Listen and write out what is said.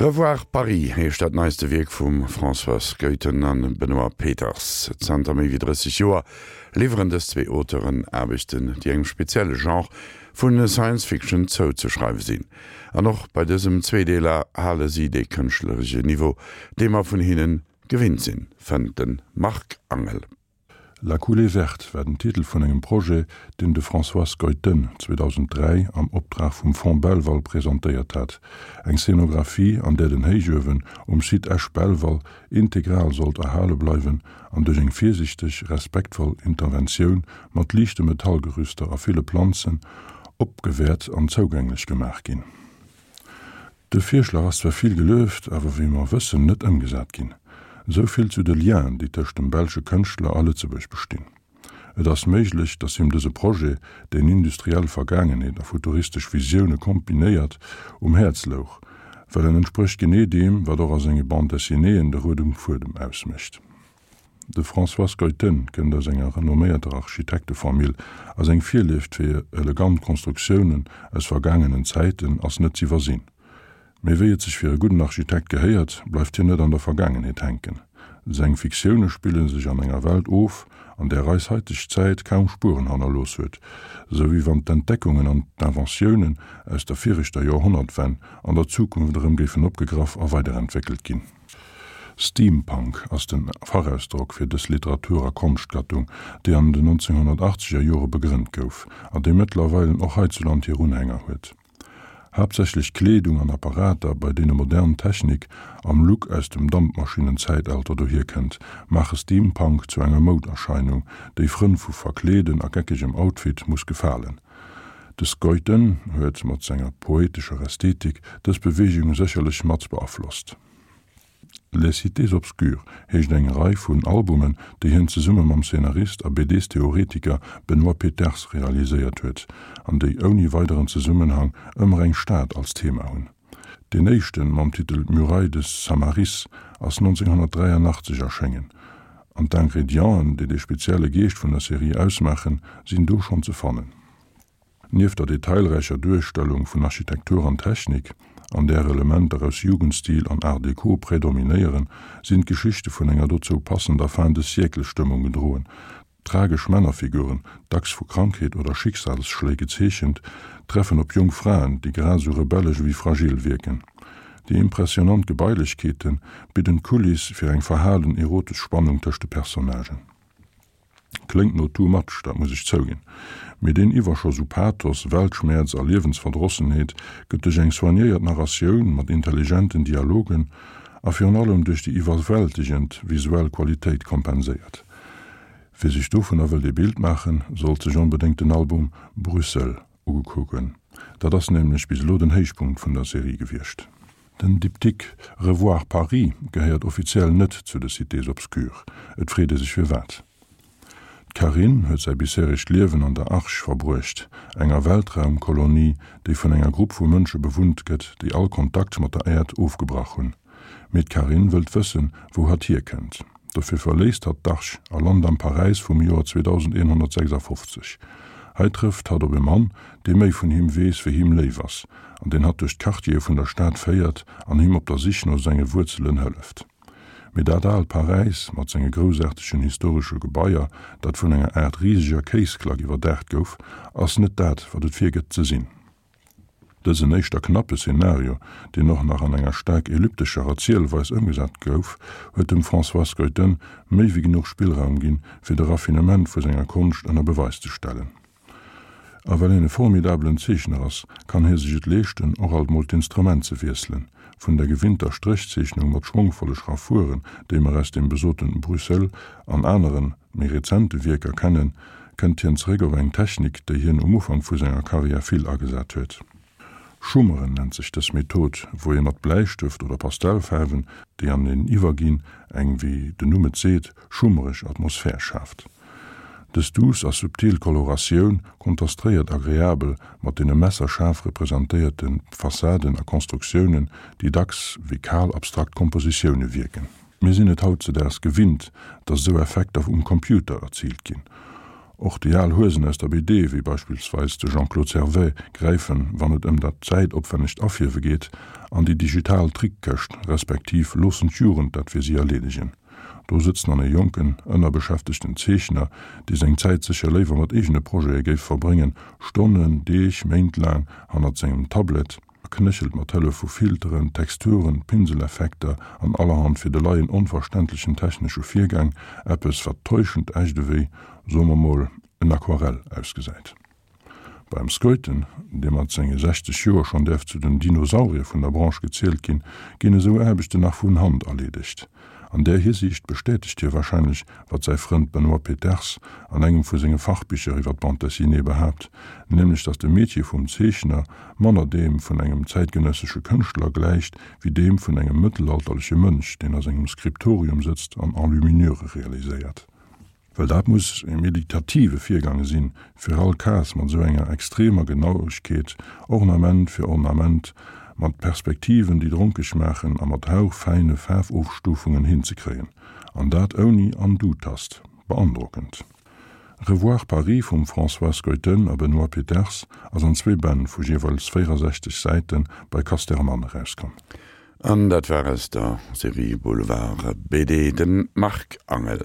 Revoir Paris heescht dat neiste Wierk vum Françoise Goethen a Benoît Peeters. Zanter méi wéi 30 Joer liwweren dës zwee Auteuren Aarbechten, déi engem spezielle Genre vu Science Fiction zouzeschreiwe sinn. An och bei dësem Zweedeeler hale si dee kënschtleresche Niveau, dee mer vun hinne gewinnt sinn, fënnt de Marc Angel. La coulée verte war den Titel vun engem Projet, deen de François Schuiten 2003 am Optrag vum Fonds Belval presentéiert hat, eng Scénographie, an där den Héichuewen um Site Esch-Belval integral sollt erhale bleiwen an duerch eng virsichteg, respektvoll Interventioun mat liichte Metallgerüster a ville Planzen opgewäert an zougänglech gemaach ginn. De Virschlag ass zwar vill gelueft, awer wéi mer wëssen, net ëmgesat ginn. Esou vill zu de Lienen, déi tëscht dem belsche Kënschtler a Lëtzebuerg bestinn. Et ass méiglech, datt him dëse Projet, deen industriell Vergaangenheet a futuristesch Visioune kombinéiert, um Häerz louch, well en entsprécht genee deem, wat och a senge Bande dessinéeën de roude Fuedem ausmécht. De François Schuiten kënnt aus enger renomméierter Architektefamill a seng Virlieft fir elegant Konstruktiounen aus vergaangenen Zäiten ass net z'iwwersinn. Mee wéi et sech fir e gudden Architekt gehéiert, bleift hien net an der Vergaangenheet hänken. Seng Fiktioune spille sech an enger Welt of, an där eis haiteg Zäit kaum Spueren hannerlooss huet, sou wéi wann d'Entdeckungen an d'Inventiounen aus der viregter Joerhonnertwenn an der Zukunft erëm géifen opgegraff a weiderentwéckelt ginn. Steampunk ass den Fachausdrock fir dës Literatur a Konschtgattung, déi an den 1980er Jore begrënnt gouf, an déi mëttlerweilen och heizuland hir Unhänger huet. Haaptsächlech Kleedung an Apparater, bei deene modern Technik am Look aus dem Dampmaschinnenzäitalter dohierkënnt, maache Steampunk zu enger Mouderscheinung, déi Frënn vu Verkleeden a geckegem Outfit muss gefalen. De Schuiten huet mat senger poetescher Ästhetik dës Beweegung sécherlech mat beaflosst. Les Cités obscures heescht eng Rei vun Albumen, déi hien zesumme mam Szenarist a BDs-Theoretiker Benoît Peeters realiséiert huet, an déi ouni weideren Zesummenhang ëmmer eng Stad als Thema hunn. Deen éischten, mam Titel Murailles de Samaris, ass 1983 erschéngen, an d'Ingredienten, déi de spezielle Geescht vun der Serie ausmaachen, sinn do schonn ze fannen. Nieft der detailräicher Duerstellung vun Architektur an Technik, an där Elementer aus Jugendstil an Art Deco predominéieren, sinn d'Geschichte vun enger dozou passender Fin-de-siècle-Stëmmung gedroen. Tragesch Männerfiguren, dacks vu Krankheet oder Schicksalsschléi gezeechent, treffen op jonk Fraen, déi grad esou rebellesch ewéi fragil wierken. Déi impressionant Gebailechkeete bidden d'Kuliss fir eng verhalen erotesch Spannung tëscht de Personnagen. Kléngt no too much, dat muss ech zouginn. Mee deen Iwwerschoss u Pathos, Weltschmäerz a Liewensverdrossenheet gëtt duerch eng soignéiert Narratioun mat intelligenten Dialogen a virun allem duerch déi iwwerwältegend visuell Qualitéit kompenséiert. Wie sech dovunner wëllt ee Bild maachen, sollt sech onbedéngt den Album Bruxelles ukucken. Dat ass nämlech bis elo den Héichpunkt vun der Serie gewiescht. Den Diptyque Revoir Paris gehéiert offiziell net zu de Cités obscures. Et freet ee sech firwat. D'Carine huet säi bisheregt Liewen an der Arche verbruecht, enger Weltraumkolonie, déi vun enger Grupp vu Mënsche bewunnt gëtt, déi all Kontakt mat der Äerd ofgebrach hunn. Mee d'Carine wëllt wëssen, wou hatt hierkënnt. Dofir verléisst hatt d'Arche a lant am Paräis vum Joer 2156. Hei trëfft hatt op e Mann, dee méi vun him weess, wéi him léif ass, an deen hatt duerch d'Quartiere vun der Stad féiert an him op der Sich no senge Wuerzelen hëlleft. Mee dat aalt Paräis mat senge groussaartegen historesche Gebaier, dat vun enger Aart riseger Kéisklack iwwerdaacht gouf, ass net dat, wat et virgëtt ze sinn. Dësen éischter knappe Szenario, deen och nach an enger staark elliptescher Erzielweis ëmgesat gouf, huet dem François Schuiten méi wéi genuch Spillraum ginn, fir de Raffinement vu senger Konscht ënner Beweis ze stellen. A well hien e formidabelen Zeechner ass, kann hie sech et leeschten, och alt mol d'Instrument ze wiesselen, vun der gewinnter Stréchzeechnung mat schwongvolle Schraffuren, déi mer aus dem besoten Bruxelles an aneren, méi rezente Wierker kennen, kënnt hien zeréck op eng Technik, déi hien um Ufank vu senger Karriär vill agesat huet. Schummeren nennt sech dës Method, wou ee mat Bläistëft oder Pastellfaarwen, déi aneneen iwwerginn, eng, wéi den Numm et seet, schummereg Atmosphär schaaft. Dës duuss a subtil Koloratioun kontastréiert agreabel mat deene messerschaarf representéierte Fassaden a Konstruktiounen, déi dacks wéi kal abstrakt Kompositioune wierken. Mir sinn et hautzedaags gewinnt, datt esou Effekter um Computer erziilt ginn. Och déi al Huesen aus der BD, wéi beispillsweis de Jean-Claude Servais, gräifen, wann et ëm dat zäitopwännegt Afierwe geet, an déi digital Trickkëscht, respektiv loossen d'Jugend dat fir si erleedegen. Do sëtzt dann e jonken, ënnerbeschäftegten Zeechner, dee seng Zäit sécher léiwer mat eegene Projete géif verbréngen, Stonnen, Deeg, Méint laang hannert sengem Tablet, a knéchelt mat Hëllef vu Filteren, Texturen, Pinseleffekter an allerhand fir de Laien onverständlechen technesche Virgäng eppes, wat täuschend echt ewéi, soe mer mol, en Aquarell ausgesäit. Beim Skeuten, dee mat senge 60 Joer schonn däerf zu den Dinosaurier vun der Branche gezielt ginn, ginn esou Aarbechten nach vun Hand erleedegt. An där Hisiicht bestätegt hie warscheinlech, wat säi Frënd Benoît Peeters an engem vu senge Fachbicher iwwer d'Bande dessinée behaapt, nämlech datt de Metier vum Zeechner manner deem vun engem zäitgenëssesche Kënschtler gläicht wéi deem vun engem mëttelalterleche Mönch, deen a sengem Skriptorium sëtzt an Enluminure realiséiert. Well dat muss e meditative Virgang sinn, fir all Case mat esou enger extremer Genauegkeet, Ornament fir Ornament, mat Perspektiven, déi dronkeg maachen, a mat hauchfäine Faarfofstufungen hinzekréien. An dat ouni Undo-Tast. Beandrockend. Revoir Paris vum Françoise Skeuten a Benoît Peeters ass an zwee Bänn vu jeeweils 64 Säite bei Casterman erauskomm. An dat war aus der Serie Boulevard BD, de Marc Angel.